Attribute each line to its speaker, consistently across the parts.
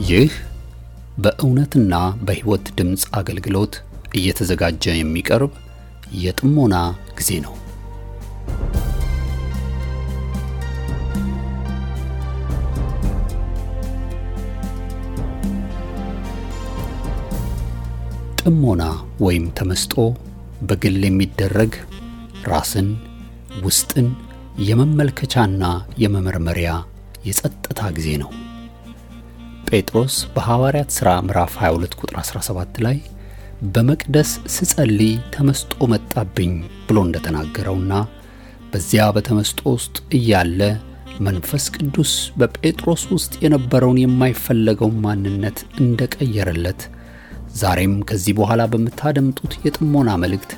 Speaker 1: ይህ በእውነትና በሕይወት ድምጽ አገልግሎት እየተዘጋጀ የሚቀርብ የጥሞና ጊዜ ነው። ጥሞና ወይም ተመስጦ በግል የሚደረግ ራስን ውስጥን የመመልከቻና የመመርመሪያ የጸጥታ ጊዜ ነው። ጴጥሮስ በሐዋርያት ሥራ ምዕራፍ 22 ቁጥር 17 ላይ በመቅደስ ስጸልይ ተመስጦ መጣብኝ ብሎ እንደተናገረውና በዚያ በተመስጦ ውስጥ እያለ መንፈስ ቅዱስ በጴጥሮስ ውስጥ የነበረውን የማይፈለገው ማንነት እንደቀየረለት ዛሬም ከዚህ በኋላ በመታደምጡት የጥሞና መልእክት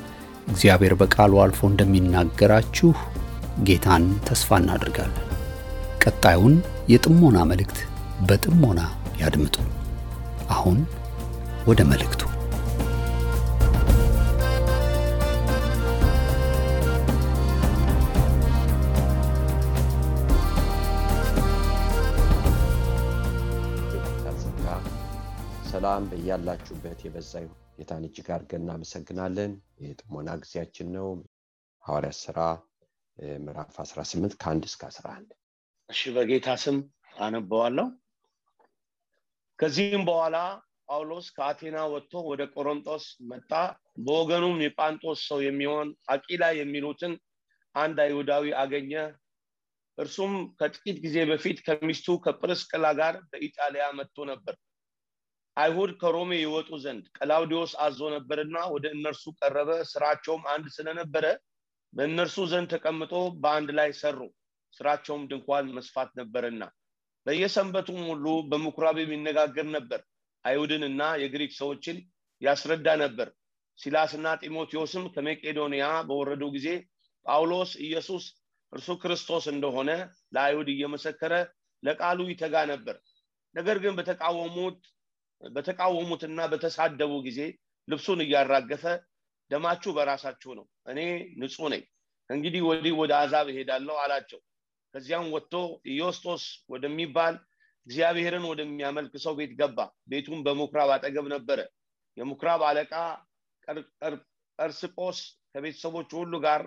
Speaker 1: እግዚአብሔር በቃሉ አልፎ እንደሚናገራችሁ ጌታን ተስፋ እናደርጋለን። ቀጣዩን የጥሞና መልእክት በጥሞና ያድምጡ። አሁን ወደ መልእክቱ።
Speaker 2: ሰላም በእያላችሁበት የበዛ ይሁን። ጌታን እጅግ አድርገን እናመሰግናለን። የጥሞና ጊዜያችን ነው። ሐዋርያት ሥራ ምዕራፍ 18 ከ1 እስከ 11።
Speaker 3: እሺ፣ በጌታ ስም አነበዋለሁ። ከዚህም በኋላ ጳውሎስ ከአቴና ወጥቶ ወደ ቆሮንቶስ መጣ። በወገኑም የጳንጦስ ሰው የሚሆን አቂላ የሚሉትን አንድ አይሁዳዊ አገኘ። እርሱም ከጥቂት ጊዜ በፊት ከሚስቱ ከጵርስቅላ ጋር በኢጣሊያ መጥቶ ነበር። አይሁድ ከሮሜ ይወጡ ዘንድ ቀላውዲዮስ አዞ ነበርና ወደ እነርሱ ቀረበ። ስራቸውም አንድ ስለነበረ በእነርሱ ዘንድ ተቀምጦ በአንድ ላይ ሰሩ። ስራቸውም ድንኳን መስፋት ነበርና በየሰንበቱም ሁሉ በምኩራብ የሚነጋገር ነበር። አይሁድንና የግሪክ ሰዎችን ያስረዳ ነበር። ሲላስና ጢሞቴዎስም ከመቄዶንያ በወረዱ ጊዜ ጳውሎስ ኢየሱስ እርሱ ክርስቶስ እንደሆነ ለአይሁድ እየመሰከረ ለቃሉ ይተጋ ነበር። ነገር ግን በተቃወሙትና በተሳደቡ ጊዜ ልብሱን እያራገፈ ደማችሁ በራሳችሁ ነው፣ እኔ ንጹሕ ነኝ፣ እንግዲህ ወዲህ ወደ አሕዛብ እሄዳለሁ አላቸው። ከዚያም ወጥቶ ኢዮስጦስ ወደሚባል እግዚአብሔርን ወደሚያመልክ ሰው ቤት ገባ። ቤቱም በምኩራብ አጠገብ ነበረ። የምኩራብ አለቃ ቀርስጶስ ከቤተሰቦቹ ሁሉ ጋር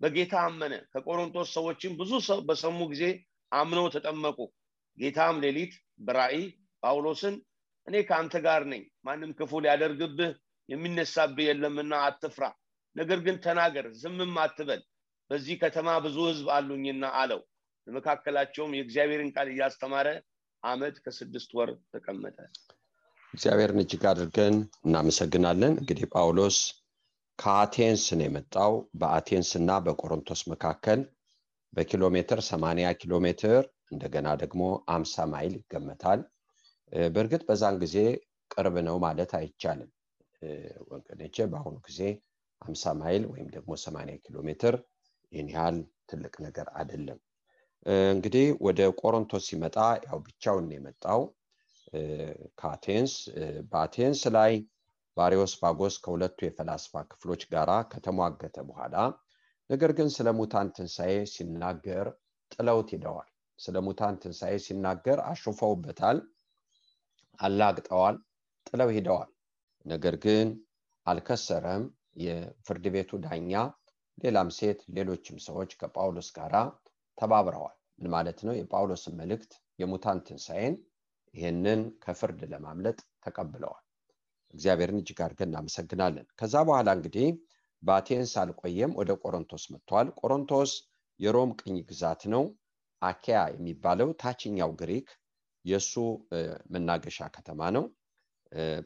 Speaker 3: በጌታ አመነ። ከቆሮንቶስ ሰዎችም ብዙ ሰው በሰሙ ጊዜ አምነው ተጠመቁ። ጌታም ሌሊት በራእይ ጳውሎስን እኔ ከአንተ ጋር ነኝ፣ ማንም ክፉ ሊያደርግብህ የሚነሳብህ የለምና አትፍራ፣ ነገር ግን ተናገር፣ ዝምም አትበል፣ በዚህ ከተማ ብዙ ሕዝብ አሉኝና አለው። በመካከላቸውም የእግዚአብሔርን ቃል እያስተማረ ዓመት ከ6 ወር ተቀመጠ።
Speaker 2: እግዚአብሔርን እጅግ አድርገን እናመሰግናለን። እንግዲህ ጳውሎስ ከአቴንስ ነው የመጣው። በአቴንስና በቆሮንቶስ መካከል በኪሎ ሜትር 80 ኪሎ ሜትር እንደገና ደግሞ 50 ማይል ይገመታል። በእርግጥ በዛን ጊዜ ቅርብ ነው ማለት አይቻልም ወገኖቼ። በአሁኑ ጊዜ 50 ማይል ወይም ደግሞ 80 ኪሎ ሜትር ይህን ያህል ትልቅ ነገር አይደለም። እንግዲህ ወደ ቆሮንቶስ ሲመጣ ያው ብቻውን የመጣው ከአቴንስ። በአቴንስ ላይ ባሪዮስፋጎስ ከሁለቱ የፈላስፋ ክፍሎች ጋራ ከተሟገተ በኋላ ነገር ግን ስለ ሙታን ትንሣኤ ሲናገር ጥለውት ሄደዋል። ስለ ሙታን ትንሣኤ ሲናገር አሾፈውበታል፣ አላግጠዋል፣ ጥለው ሄደዋል። ነገር ግን አልከሰረም። የፍርድ ቤቱ ዳኛ ሌላም ሴት ሌሎችም ሰዎች ከጳውሎስ ጋራ ተባብረዋል። ምን ማለት ነው? የጳውሎስን መልእክት የሙታን ትንሣኤን ይህንን ከፍርድ ለማምለጥ ተቀብለዋል። እግዚአብሔርን እጅግ አድርገን እናመሰግናለን። ከዛ በኋላ እንግዲህ በአቴንስ አልቆየም፣ ወደ ቆሮንቶስ መጥቷል። ቆሮንቶስ የሮም ቅኝ ግዛት ነው። አኪያ የሚባለው ታችኛው ግሪክ የሱ መናገሻ ከተማ ነው።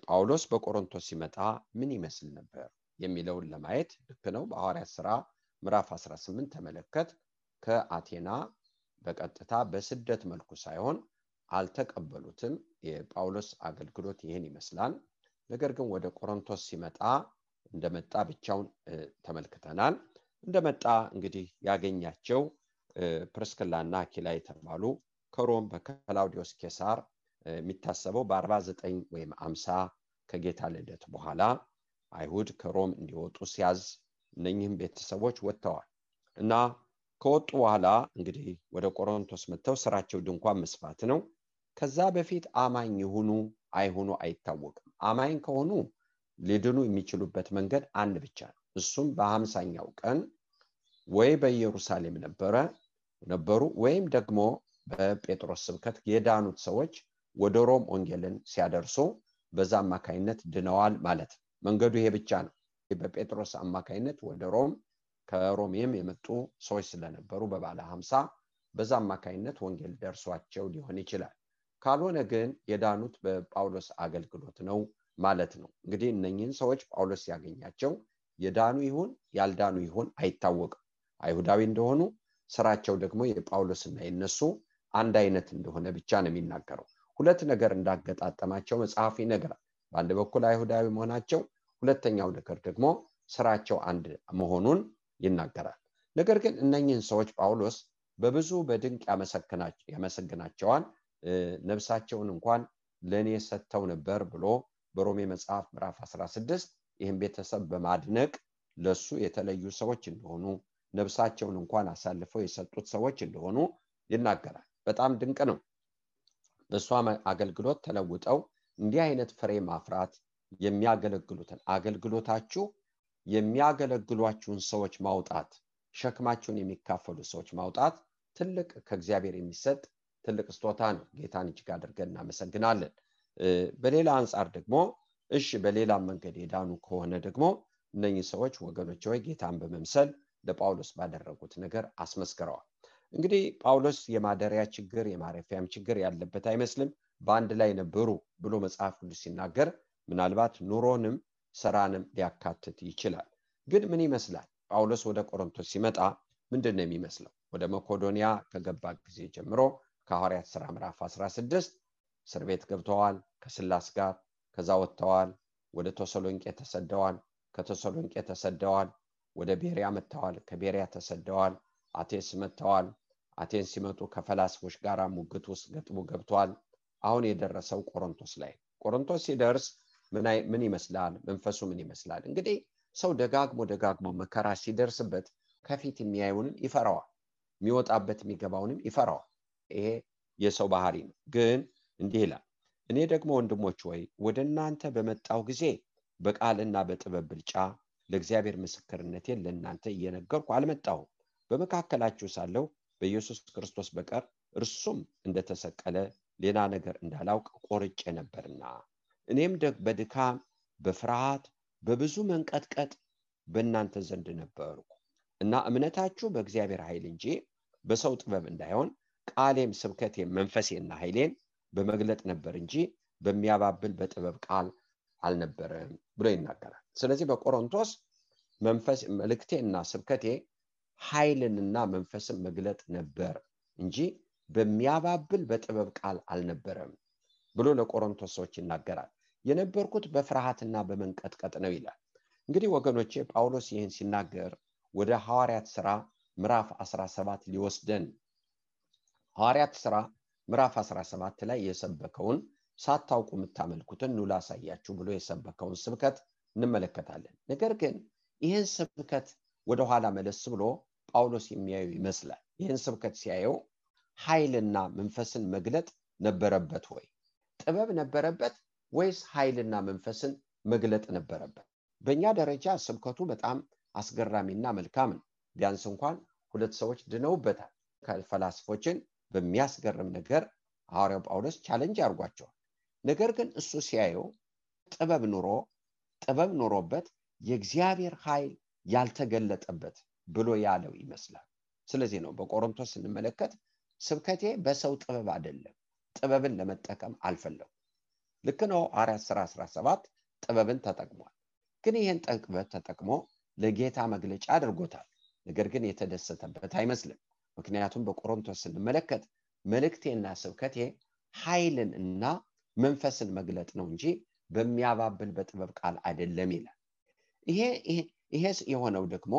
Speaker 2: ጳውሎስ በቆሮንቶስ ሲመጣ ምን ይመስል ነበር የሚለውን ለማየት ልክ ነው። በሐዋርያት ሥራ ምዕራፍ 18 ተመለከት። ከአቴና በቀጥታ በስደት መልኩ ሳይሆን አልተቀበሉትም። የጳውሎስ አገልግሎት ይህን ይመስላል። ነገር ግን ወደ ቆሮንቶስ ሲመጣ እንደመጣ ብቻውን ተመልክተናል። እንደመጣ እንግዲህ ያገኛቸው ፕርስቅላና አኪላ የተባሉ ከሮም በክላውዲዮስ ቄሳር የሚታሰበው በ49 ወይም 50 ከጌታ ልደት በኋላ አይሁድ ከሮም እንዲወጡ ሲያዝ እነኚህም ቤተሰቦች ወጥተዋል እና ከወጡ በኋላ እንግዲህ ወደ ቆሮንቶስ መጥተው ስራቸው ድንኳን መስፋት ነው። ከዛ በፊት አማኝ ይሁኑ አይሁኑ አይታወቅም። አማኝ ከሆኑ ሊድኑ የሚችሉበት መንገድ አንድ ብቻ ነው። እሱም በ50ኛው ቀን ወይ በኢየሩሳሌም ነበሩ ወይም ደግሞ በጴጥሮስ ስብከት የዳኑት ሰዎች ወደ ሮም ወንጌልን ሲያደርሱ በዛ አማካይነት ድነዋል ማለት ነው። መንገዱ ይሄ ብቻ ነው። በጴጥሮስ አማካይነት ወደ ሮም ከሮሜም የመጡ ሰዎች ስለነበሩ በባለ 50 በዛ አማካይነት ወንጌል ደርሷቸው ሊሆን ይችላል። ካልሆነ ግን የዳኑት በጳውሎስ አገልግሎት ነው ማለት ነው። እንግዲህ እነኚህን ሰዎች ጳውሎስ ያገኛቸው የዳኑ ይሁን ያልዳኑ ይሁን አይታወቅም። አይሁዳዊ እንደሆኑ ስራቸው ደግሞ የጳውሎስና የነሱ አንድ አይነት እንደሆነ ብቻ ነው የሚናገረው። ሁለት ነገር እንዳገጣጠማቸው መጽሐፍ ይነግራል። በአንድ በኩል አይሁዳዊ መሆናቸው፣ ሁለተኛው ነገር ደግሞ ስራቸው አንድ መሆኑን ይናገራል። ነገር ግን እነኚህን ሰዎች ጳውሎስ በብዙ በድንቅ ያመሰግናቸዋል። ነፍሳቸውን እንኳን ለኔ ሰጥተው ነበር ብሎ በሮሜ መጽሐፍ ምዕራፍ 16 ይህን ቤተሰብ በማድነቅ ለሱ የተለዩ ሰዎች እንደሆኑ ነፍሳቸውን እንኳን አሳልፈው የሰጡት ሰዎች እንደሆኑ ይናገራል። በጣም ድንቅ ነው። በሷ አገልግሎት ተለውጠው እንዲህ አይነት ፍሬ ማፍራት የሚያገለግሉትን አገልግሎታችሁ የሚያገለግሏችሁን ሰዎች ማውጣት፣ ሸክማችሁን የሚካፈሉ ሰዎች ማውጣት ትልቅ ከእግዚአብሔር የሚሰጥ ትልቅ ስጦታ ነው። ጌታን እጅግ አድርገን እናመሰግናለን። በሌላ አንጻር ደግሞ እሺ በሌላ መንገድ የዳኑ ከሆነ ደግሞ እነኚህ ሰዎች ወገኖች ሆይ ጌታን በመምሰል ለጳውሎስ ባደረጉት ነገር አስመስክረዋል። እንግዲህ ጳውሎስ የማደሪያ ችግር የማረፊያም ችግር ያለበት አይመስልም። በአንድ ላይ ነበሩ ብሎ መጽሐፍ ቅዱስ ሲናገር ምናልባት ኑሮንም ስራንም ሊያካትት ይችላል። ግን ምን ይመስላል? ጳውሎስ ወደ ቆሮንቶስ ሲመጣ ምንድን ነው የሚመስለው? ወደ መቄዶንያ ከገባ ጊዜ ጀምሮ ከሐዋርያት ሥራ ምዕራፍ 16 እስር ቤት ገብተዋል ከስላስ ጋር። ከዛ ወጥተዋል፣ ወደ ተሰሎንቄ ተሰደዋል፣ ከተሰሎንቄ ተሰደዋል፣ ወደ ቤሪያ መጥተዋል፣ ከቤሪያ ተሰደዋል፣ አቴንስ መጥተዋል። አቴንስ ሲመጡ ከፈላስፎች ጋር ሙግት ውስጥ ገጥሞ ገብተዋል። አሁን የደረሰው ቆሮንቶስ ላይ። ቆሮንቶስ ሲደርስ ምን ይመስላል? መንፈሱ ምን ይመስላል? እንግዲህ ሰው ደጋግሞ መከራ ሲደርስበት ከፊት የሚያየውንም ይፈራዋል፣ የሚወጣበት የሚገባውንም ይፈራዋል። ይሄ የሰው ባህሪ ነው። ግን እንዲህ ይላል፣ እኔ ደግሞ ወንድሞች ወይ ወደ እናንተ በመጣው ጊዜ በቃልና በጥበብ ብልጫ ለእግዚአብሔር ምስክርነቴን ለእናንተ እየነገርኩ አልመጣሁም። በመካከላችሁ ሳለሁ በኢየሱስ ክርስቶስ በቀር እርሱም እንደተሰቀለ ሌላ ነገር እንዳላውቅ ቆርጬ ነበርና፣ እኔም በድካም በፍርሃት በብዙ መንቀጥቀጥ በእናንተ ዘንድ ነበርኩ እና እምነታችሁ በእግዚአብሔር ኃይል እንጂ በሰው ጥበብ እንዳይሆን ቃሌም ስብከቴም መንፈሴና ኃይሌን በመግለጥ ነበር እንጂ በሚያባብል በጥበብ ቃል አልነበረም ብሎ ይናገራል። ስለዚህ በቆሮንቶስ መንፈስ መልእክቴና ስብከቴ ኃይልንና መንፈስን መግለጥ ነበር እንጂ በሚያባብል በጥበብ ቃል አልነበረም ብሎ ለቆሮንቶስ ሰዎች ይናገራል። የነበርኩት በፍርሃትና በመንቀጥቀጥ ነው ይላል። እንግዲህ ወገኖቼ ጳውሎስ ይህን ሲናገር ወደ ሐዋርያት ሥራ ምዕራፍ 17 ሊወስደን። ሐዋርያት ሥራ ምዕራፍ 17 ላይ የሰበከውን ሳታውቁ የምታመልኩትን ኑ ላሳያችሁ ብሎ የሰበከውን ስብከት እንመለከታለን። ነገር ግን ይህን ስብከት ወደኋላ መለስ ብሎ ጳውሎስ የሚያዩ ይመስላል። ይህን ስብከት ሲያየው ኃይልና መንፈስን መግለጥ ነበረበት ወይ? ጥበብ ነበረበት ወይስ ኃይልና መንፈስን መግለጥ ነበረበት? በእኛ ደረጃ ስብከቱ በጣም አስገራሚና መልካም ነው። ቢያንስ እንኳን 2 ሰዎች ድነውበታል። ከፈላስፎችን በሚያስገርም ነገር ሐዋርያው ጳውሎስ ቻሌንጅ አድርጓቸዋል። ነገር ግን እሱ ሲያየው ጥበብ ኖሮበት የእግዚአብሔር ኃይል ያልተገለጠበት ብሎ ያለው ይመስላል። ስለዚህ ነው በቆሮንቶስ ስንመለከት ስብከቴ በሰው ጥበብ አይደለም፣ ጥበብን ለመጠቀም አልፈለኩም። ልክ ነው። ሐዋርያት ሥራ 17 ጥበብን ተጠቅሟል። ግን ይህን ጥበብ ተጠቅሞ ለጌታ መግለጫ አድርጎታል። ነገር ግን የተደሰተበት አይመስልም። ምክንያቱም በቆሮንቶስ ስንመለከት መልእክቴና ስብከቴ ኃይልን እና መንፈስን መግለጥ ነው እንጂ በሚያባብል በጥበብ ቃል አይደለም ይላል። ይሄ የሆነው ደግሞ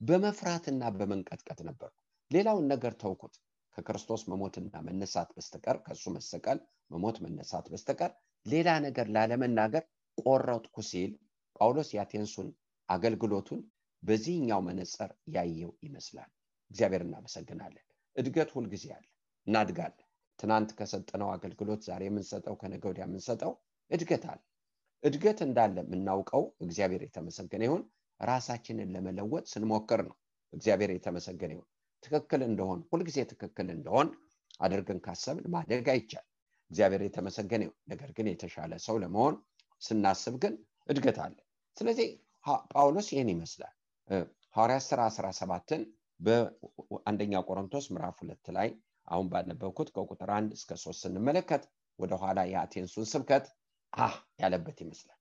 Speaker 2: በመፍራትና በመንቀጥቀጥ ነበር። ሌላውን ነገር ተውኩት። ከክርስቶስ መሞትና መነሳት በስተቀር ከሱ መሰቀል መሞት መነሳት በስተቀር ሌላ ነገር ላለመናገር ቆረጥኩ ሲል ጳውሎስ የአቴንሱን አገልግሎቱን በዚህኛው መነጽር ያየው ይመስላል። እግዚአብሔር እናመሰግናለን። እድገት ሁልጊዜ አለ፣ እናድጋለን። ትናንት ከሰጠነው አገልግሎት ዛሬ የምንሰጠው ከነገ ወዲያ የምንሰጠው እድገት አለ። እድገት እንዳለ የምናውቀው እግዚአብሔር የተመሰገነ ይሁን ራሳችንን ለመለወጥ ስንሞክር ነው። እግዚአብሔር የተመሰገነ ይሁን። ትክክል እንደሆን ሁልጊዜ ትክክል እንደሆን አድርገን ካሰብን ማደግ አይቻል። እግዚአብሔር የተመሰገነ ይሁን። ነገር ግን የተሻለ ሰው ለመሆን ስናስብ ግን እድገት አለ። ስለዚህ ጳውሎስ ይህን ይመስላል። ሐዋርያት ሥራ 17ን በአንደኛ ቆሮንቶስ ምዕራፍ 2 ላይ አሁን ባነበብኩት ከቁጥር 1 እስከ 3 ስንመለከት ወደ ኋላ የአቴንሱን ስብከት ያለበት ይመስላል።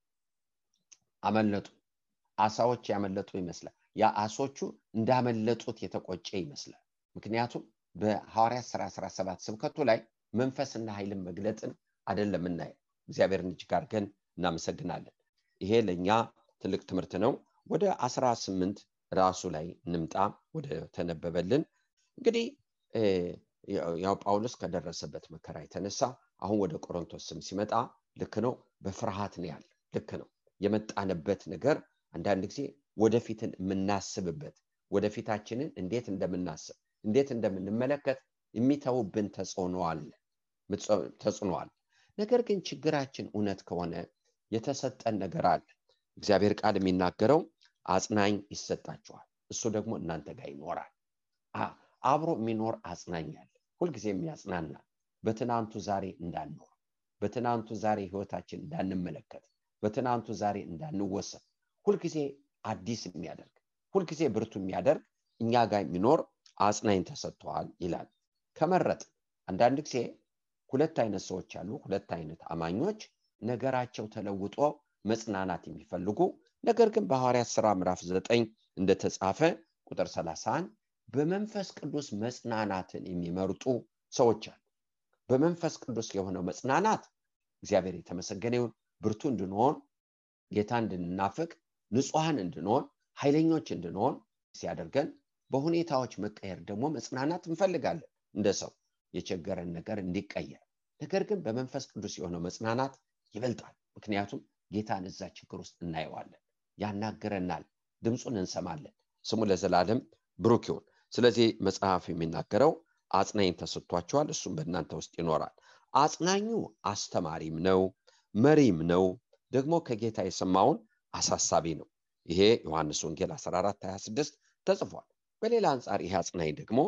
Speaker 2: አመለጡ፣ አሳዎች ያመለጡ ይመስላል። ያ አሶቹ እንዳመለጡት የተቆጨ ይመስላል። ምክንያቱም በሐዋርያት ሥራ 17 ስብከቱ ላይ መንፈስና ኃይልን መግለጥን አይደለም እናየው። እግዚአብሔርን እጅግ አድርገን እናመሰግናለን። ይሄ ለኛ ትልቅ ትምህርት ነው። ወደ 18 ራሱ ላይ እንምጣ፣ ወደ ተነበበልን። እንግዲህ ያው ጳውሎስ ከደረሰበት መከራ የተነሳ አሁን ወደ ቆሮንቶስ ሲመጣ ልክ ነው፣ በፍርሃት ነው ያለ። ልክ ነው። የመጣንበት ነገር አንዳንድ ጊዜ ወደፊትን የምናስብበት ወደፊታችንን እንዴት እንደምናስብ እንዴት እንደምንመለከት የሚተውብን ተጽዕኖ አለ። ነገር ግን ችግራችን እውነት ከሆነ የተሰጠን ነገር አለ። እግዚአብሔር ቃል የሚናገረው አጽናኝ ይሰጣችኋል፣ እሱ ደግሞ እናንተ ጋር ይኖራል። አብሮ የሚኖር አጽናኝ አለ፣ ሁልጊዜ የሚያጽናና፣ በትናንቱ ዛሬ እንዳንኖር፣ በትናንቱ ዛሬ ህይወታችን እንዳንመለከት፣ በትናንቱ ዛሬ እንዳንወሰን፣ ሁልጊዜ አዲስ የሚያደርግ ሁልጊዜ ብርቱ የሚያደርግ እኛ ጋር የሚኖር አጽናኝ ተሰጥቷል ይላል። ከመረጥ አንዳንድ ጊዜ ሁለት አይነት ሰዎች አሉ፣ ሁለት አይነት አማኞች ነገራቸው ተለውጦ መጽናናት የሚፈልጉ ነገር ግን በሐዋርያት ሥራ ምዕራፍ 9 እንደተጻፈ ቁጥር 31 በመንፈስ ቅዱስ መጽናናትን የሚመርጡ ሰዎች አሉ። በመንፈስ ቅዱስ የሆነው መጽናናት እግዚአብሔር የተመሰገነ ይሁን ብርቱ እንድንሆን፣ ጌታ እንድንናፍቅ፣ ንጹሃን እንድንሆን፣ ኃይለኞች እንድንሆን ሲያደርገን፣ በሁኔታዎች መቀየር ደግሞ መጽናናት እንፈልጋለን እንደ ሰው የቸገረን ነገር እንዲቀየር። ነገር ግን በመንፈስ ቅዱስ የሆነው መጽናናት ይበልጣል። ምክንያቱም ጌታን እዛ ችግር ውስጥ እናየዋለን፣ ያናገረናል፣ ድምፁን እንሰማለን። ስሙ ለዘላለም ብሩክ ይሁን። ስለዚህ መጽሐፍ የሚናገረው አጽናኝ ተሰጥቷቸዋል፣ እሱም በእናንተ ውስጥ ይኖራል። አጽናኙ አስተማሪም ነው፣ መሪም ነው፣ ደግሞ ከጌታ የሰማውን አሳሳቢ ነው። ይሄ ዮሐንስ ወንጌል 14:26 ተጽፏል። በሌላ አንጻር ይሄ አጽናኝ ደግሞ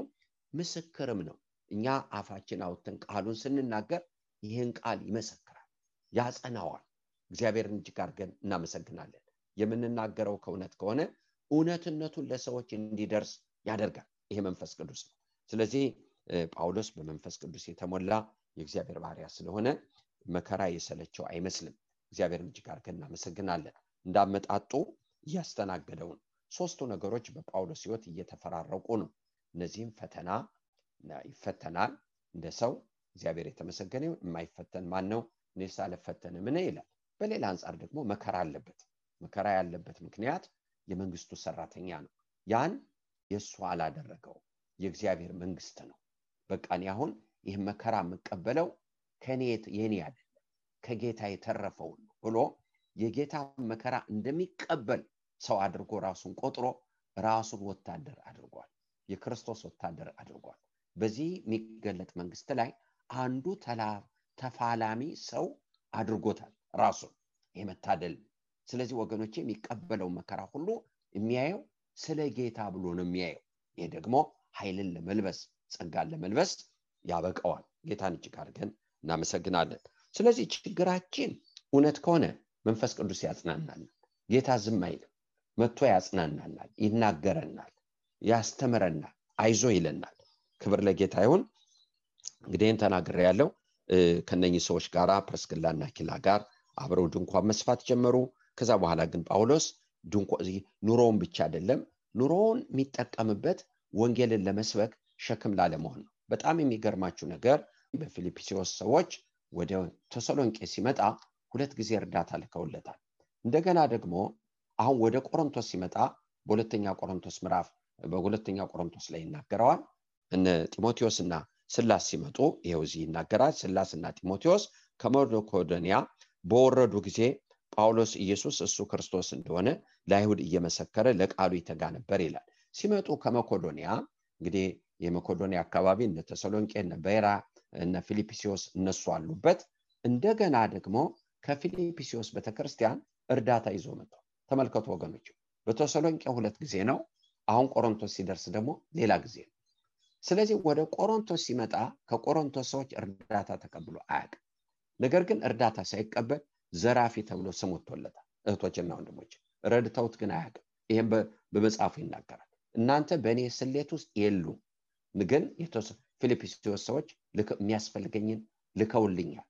Speaker 2: ምስክርም ነው። እኛ አፋችን አውጥተን ቃሉን ስንናገር ይህን ቃል ይመሰክራል፣ ያጸናዋል። እግዚአብሔርን እጅግ አድርገን እናመሰግናለን። የምንናገረው ከእውነት ከሆነ እውነትነቱን ለሰዎች እንዲደርስ ያደርጋል። ይሄ መንፈስ ቅዱስ ነው። ስለዚህ ጳውሎስ በመንፈስ ቅዱስ የተሞላ የእግዚአብሔር ባሪያ ስለሆነ መከራ የሰለቸው አይመስልም። እግዚአብሔርን እጅግ አድርገን እናመሰግናለን። እንዳመጣጡ እያስተናገደው ነው። ሶስቱ ነገሮች በጳውሎስ ሕይወት እየተፈራረቁ ነው። እነዚህም ፈተና ይፈተናል እንደ ሰው። እግዚአብሔር የተመሰገነ ይሁን። የማይፈተን ማን ነው? እኔስ አልፈተንም ይላል። በሌላ አንጻር ደግሞ መከራ አለበት። መከራ ያለበት ምክንያት የመንግስቱ ሰራተኛ ነው። ያን የእሱ አላደረገው፣ የእግዚአብሔር መንግስት ነው። በቃ እኔ አሁን ይህ መከራ የምቀበለው ከኔ የኔ አይደለም ከጌታ የተረፈው ነው ብሎ የጌታ መከራ እንደሚቀበል ሰው አድርጎ ራሱን ቆጥሮ ራሱን ወታደር አድርጓል። የክርስቶስ ወታደር አድርጓል። በዚህ የሚገለጥ መንግስት ላይ አንዱ ተፋላሚ ሰው አድርጎታል ራሱን። የመታደል ስለዚህ ወገኖቼ የሚቀበለው መከራ ሁሉ የሚያየው ስለ ጌታ ብሎ ነው የሚያየው። ይሄ ደግሞ ኃይልን ለመልበስ ጸጋን ለመልበስ ያበቃዋል። ጌታን እጅግ አድርገን እናመሰግናለን። ስለዚህ ችግራችን እውነት ከሆነ መንፈስ ቅዱስ ያጽናናናል። ጌታ ዝም አይልም፣ መጥቶ ያጽናናናል፣ ይናገረናል፣ ያስተምረናል፣ አይዞ ይለናል። ክብር ለጌታ ይሁን። እንግዲህ ተናግሬ ያለው ከነኚህ ሰዎች ጋራ ፕርስክላና አኪላ ጋር አብረው ድንኳን መስፋት ጀመሩ። ከዛ በኋላ ግን ጳውሎስ ኑሮውን ብቻ አይደለም ኑሮውን የሚጠቀምበት ወንጌልን ለመስበክ ሸክም ላለመሆን ነው። በጣም የሚገርማችሁ ነገር በፊልጵስዩስ ሰዎች ወደ ተሰሎንቄ ሲመጣ 2 ጊዜ እርዳታ ልከውለታል። እንደገና ደግሞ አሁን ወደ ቆሮንቶስ ሲመጣ በሁለተኛ ቆሮንቶስ ላይ ይናገረዋል። እነ ጢሞቴዎስና ስላስ ሲመጡ ይሄው እዚህ ይናገራል። ስላስና ጢሞቴዎስ ከመቄዶንያ በወረዱ ጊዜ ጳውሎስ ኢየሱስ እሱ ክርስቶስ እንደሆነ ለአይሁድ እየመሰከረ ለቃሉ ይተጋ ነበር ይላል። ሲመጡ ከመቄዶንያ እንግዲህ የመቄዶንያ አካባቢ እነ ተሰሎንቄ እነ ቤራ እና ፊልጵስዩስ እነሱ አሉበት። እንደገና ደግሞ ከፊልጵስዩስ ቤተክርስቲያን እርዳታ ይዞ መጣ። ተመልከቱ ወገኖች፣ በተሰሎንቄ 2 ጊዜ ነው። አሁን ቆሮንቶስ ሲደርስ ደግሞ ሌላ ጊዜ ነው። ስለዚህ ወደ ቆሮንቶስ ሲመጣ ከቆሮንቶስ ሰዎች እርዳታ ተቀብሎ አያውቅም። ነገር ግን እርዳታ ሳይቀበል ዘራፊ ተብሎ ስም ወጥቶለታል። እህቶችና ወንድሞች ረድተውት ግን አያውቅም። ይሄን በመጽሐፉ ይናገራል። እናንተ በእኔ ስሌት ውስጥ የሉም፣ ግን ፊልጵስዩስ ሰዎች የሚያስፈልገኝን ልከውልኛል።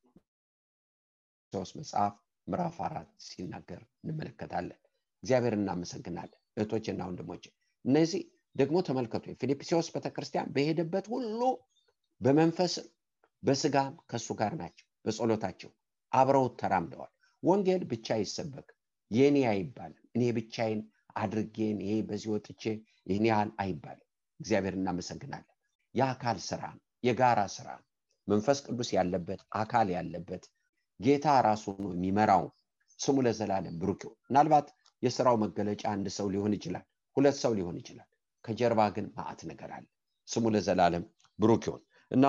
Speaker 2: ሶስ መጽሐፍ ምዕራፍ 4 ሲናገር እንመለከታለን። እግዚአብሔር እናመሰግናለን። እህቶችና ወንድሞች እነዚህ ደግሞ ተመልከቱ፣ የፊልጵስዩስ ቤተክርስቲያን በሄደበት ሁሉ በመንፈስም በስጋም ከሱ ጋር ናቸው። በጸሎታቸው አብረው ተራምደዋል። ወንጌል ብቻ ይሰበክ የኔ አይባልም። እኔ ብቻዬን አድርጌን ይሄ በዚህ ወጥቼ ይሄን ያህል አይባልም። እግዚአብሔር እናመሰግናለን። የአካል ስራ፣ የጋራ ስራ፣ መንፈስ ቅዱስ ያለበት አካል ያለበት ጌታ ራሱ ነው የሚመራው። ስሙ ለዘላለም ብሩክ ይሁን። ምናልባት የሥራው መገለጫ አንድ ሰው ሊሆን ይችላል፣ ሁለት ሰው ሊሆን ይችላል። ከጀርባ ግን ማዕት ነገር አለ። ስሙ ለዘላለም ብሩክ ይሁን። እና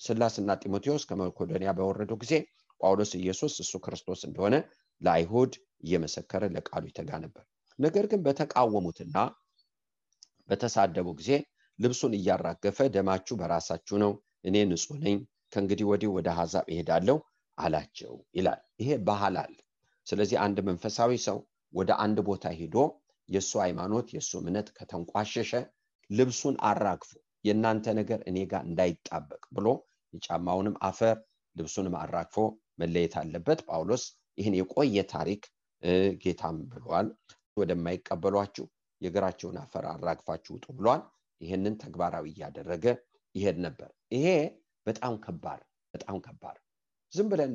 Speaker 2: ስላስና ጢሞቴዎስ ከመቄዶንያ በወረደው ጊዜ ጳውሎስ ኢየሱስ እሱ ክርስቶስ እንደሆነ ለአይሁድ እየመሰከረ ለቃሉ ይተጋ ነበር። ነገር ግን በተቃወሙትና በተሳደቡ ጊዜ ልብሱን እያራገፈ ደማችሁ በራሳችሁ ነው፣ እኔ ንጹህ ነኝ፣ ከእንግዲህ ወዲህ ወደ አሕዛብ እሄዳለሁ አላቸው ይላል። ይሄ ባህል አለ። ስለዚህ አንድ መንፈሳዊ ሰው ወደ አንድ ቦታ ሄዶ የሱ ሃይማኖት የሱ እምነት ከተንቋሸሸ ልብሱን አራግፎ የናንተ ነገር እኔ ጋር እንዳይጣበቅ ብሎ የጫማውንም አፈር ልብሱንም አራግፎ መለየት አለበት። ጳውሎስ ይህን የቆየ ታሪክ ጌታም ብሏል። ወደማይቀበሏችሁ የእግራቸውን አፈር አራግፋችሁ ውጡ ብሏል። ይሄንን ተግባራዊ ያደረገ ይሄድ ነበር። ይሄ በጣም ከባድ ዝም ብለን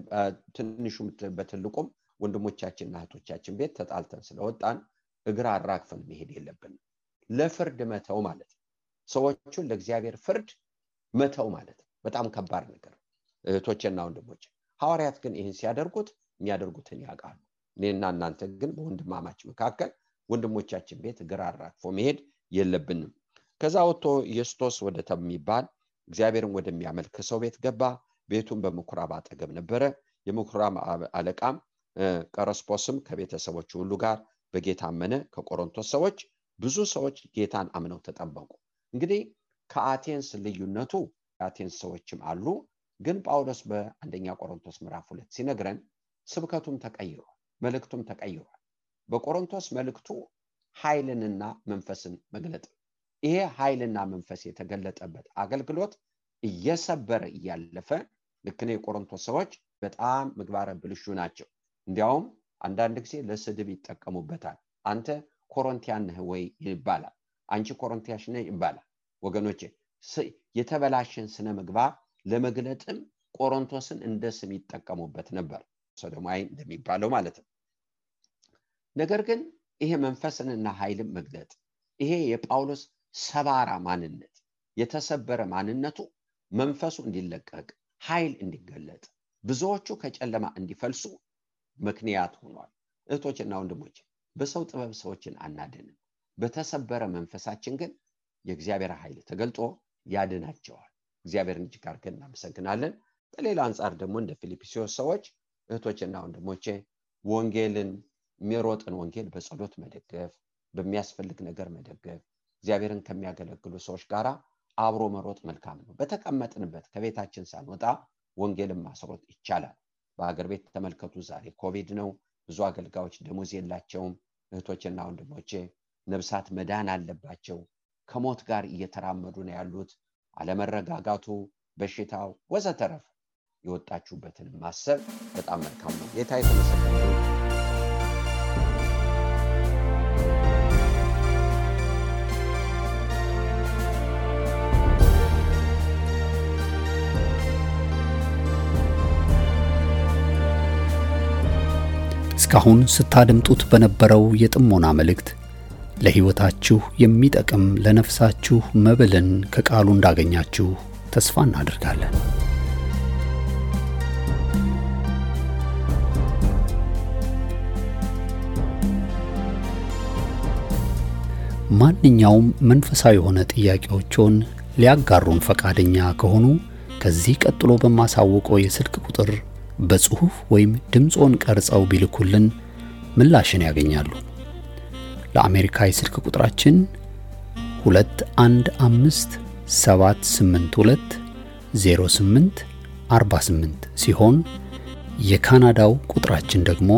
Speaker 2: ትንሹም በትልቁም ወንድሞቻችንና እህቶቻችን ቤት ተጣልተን ስለወጣን እግራ አራግፈን መሄድ የለብንም። ለፍርድ መተው ማለት ነው። ሰዎቹን ለእግዚአብሔር ፍርድ መተው ማለት ነው። በጣም ከባድ ነገር። እህቶችና ወንድሞች ሐዋርያት ግን ይህን ሲያደርጉት የሚያደርጉትን ያውቃሉ። እኔና እናንተ ግን በወንድማማች መካከል ወንድሞቻችን ቤት እግራ አራግፎ መሄድ የለብንም። ከዛ ወጥቶ ኢየሱስ ወደ ተሚባል እግዚአብሔርን ወደሚያመልክ ሰው ቤት ገባ። ቤቱን በምኩራብ አጠገብ ነበረ። የምኩራብ አለቃም ቀርስጶስም ከቤተሰቦቹ ሁሉ ጋር በጌታ አመነ። ከቆሮንቶስ ሰዎች ብዙ ሰዎች ጌታን አምነው ተጠመቁ። እንግዲህ ከአቴንስ ልዩነቱ አቴንስ ሰዎችም አሉ፣ ግን ጳውሎስ በአንደኛ ቆሮንቶስ ምዕራፍ 2 ሲነግረን ስብከቱም ተቀይሯል፣ መልእክቱም ተቀይሯል። በቆሮንቶስ መልእክቱ ኃይልንና መንፈስን መግለጥ፣ ይሄ ኃይልና መንፈስ የተገለጠበት አገልግሎት እየሰበረ እያለፈ ልክ ነው። የቆሮንቶስ ሰዎች በጣም ምግባረ ብልሹ ናቸው። እንዲያውም አንዳንድ ጊዜ ለስድብ ይጠቀሙበታል። አንተ ኮሮንቲያን ነህ ወይ ይባላል፣ አንቺ ኮሮንቲያሽ ነህ ይባላል። ወገኖቼ የተበላሸን ስነ ምግባር ለመግለጥም ቆሮንቶስን እንደ ስም ይጠቀሙበት ነበር፣ ሶዶማይ እንደሚባለው ማለት ነው። ነገር ግን ይሄ መንፈስንና ኃይልን መግለጥ፣ ይሄ የጳውሎስ ሰባራ ማንነት፣ የተሰበረ ማንነቱ መንፈሱ እንዲለቀቅ ኃይል እንዲገለጥ ብዙዎቹ ከጨለማ እንዲፈልሱ ምክንያት ሆኗል። እህቶችና ወንድሞች በሰው ጥበብ ሰዎችን አናድንም። በተሰበረ መንፈሳችን ግን የእግዚአብሔር ኃይል ተገልጦ ያድናቸዋል። እግዚአብሔርን እጅግ አድርገን እናመሰግናለን። በሌላ አንጻር ደግሞ እንደ ፊልጵስዩስ ሰዎች እህቶችና ወንድሞቼ ወንጌልን የሚሮጥን ወንጌል በጸሎት መደገፍ፣ በሚያስፈልግ ነገር መደገፍ፣ እግዚአብሔርን ከሚያገለግሉ ሰዎች ጋር አብሮ መሮጥ መልካም ነው። በተቀመጥንበት ከቤታችን ሳንወጣ ወንጌልን ማስሮጥ ይቻላል። በአገር ቤት ተመልከቱ፣ ዛሬ ኮቪድ ነው። ብዙ አገልጋዮች ደሞዝ የላቸውም። እህቶችና ወንድሞቼ ነፍሳት መዳን አለባቸው። ከሞት ጋር እየተራመዱ ነው ያሉት። አለመረጋጋቱ፣ በሽታው ወዘተረፈ የወጣችሁበትን ማሰብ በጣም መልካም ነው። ጌታ የተመሰገነ ይሁን።
Speaker 1: እስካሁን ስታደምጡት በነበረው የጥሞና መልእክት ለሕይወታችሁ የሚጠቅም ለነፍሳችሁ መብልን ከቃሉ እንዳገኛችሁ ተስፋ እናደርጋለን። ማንኛውም መንፈሳዊ የሆነ ጥያቄዎችን ሊያጋሩን ፈቃደኛ ከሆኑ ከዚህ ቀጥሎ በማሳውቀው የስልክ ቁጥር በጽሁፍ ወይም ድምጾን ቀርጸው ቢልኩልን ምላሽን ያገኛሉ። ለአሜሪካ የስልክ ቁጥራችን 2157820848 ሲሆን የካናዳው ቁጥራችን ደግሞ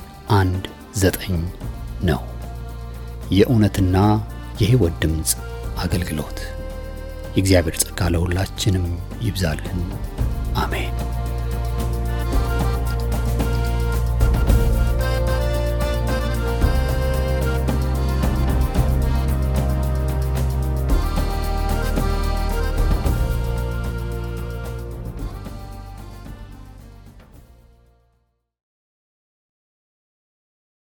Speaker 1: 647-518-4919 ነው። የእውነትና የሕይወት ድምጽ አገልግሎት። የእግዚአብሔር ጸጋ ለሁላችንም ይብዛልን። አሜን።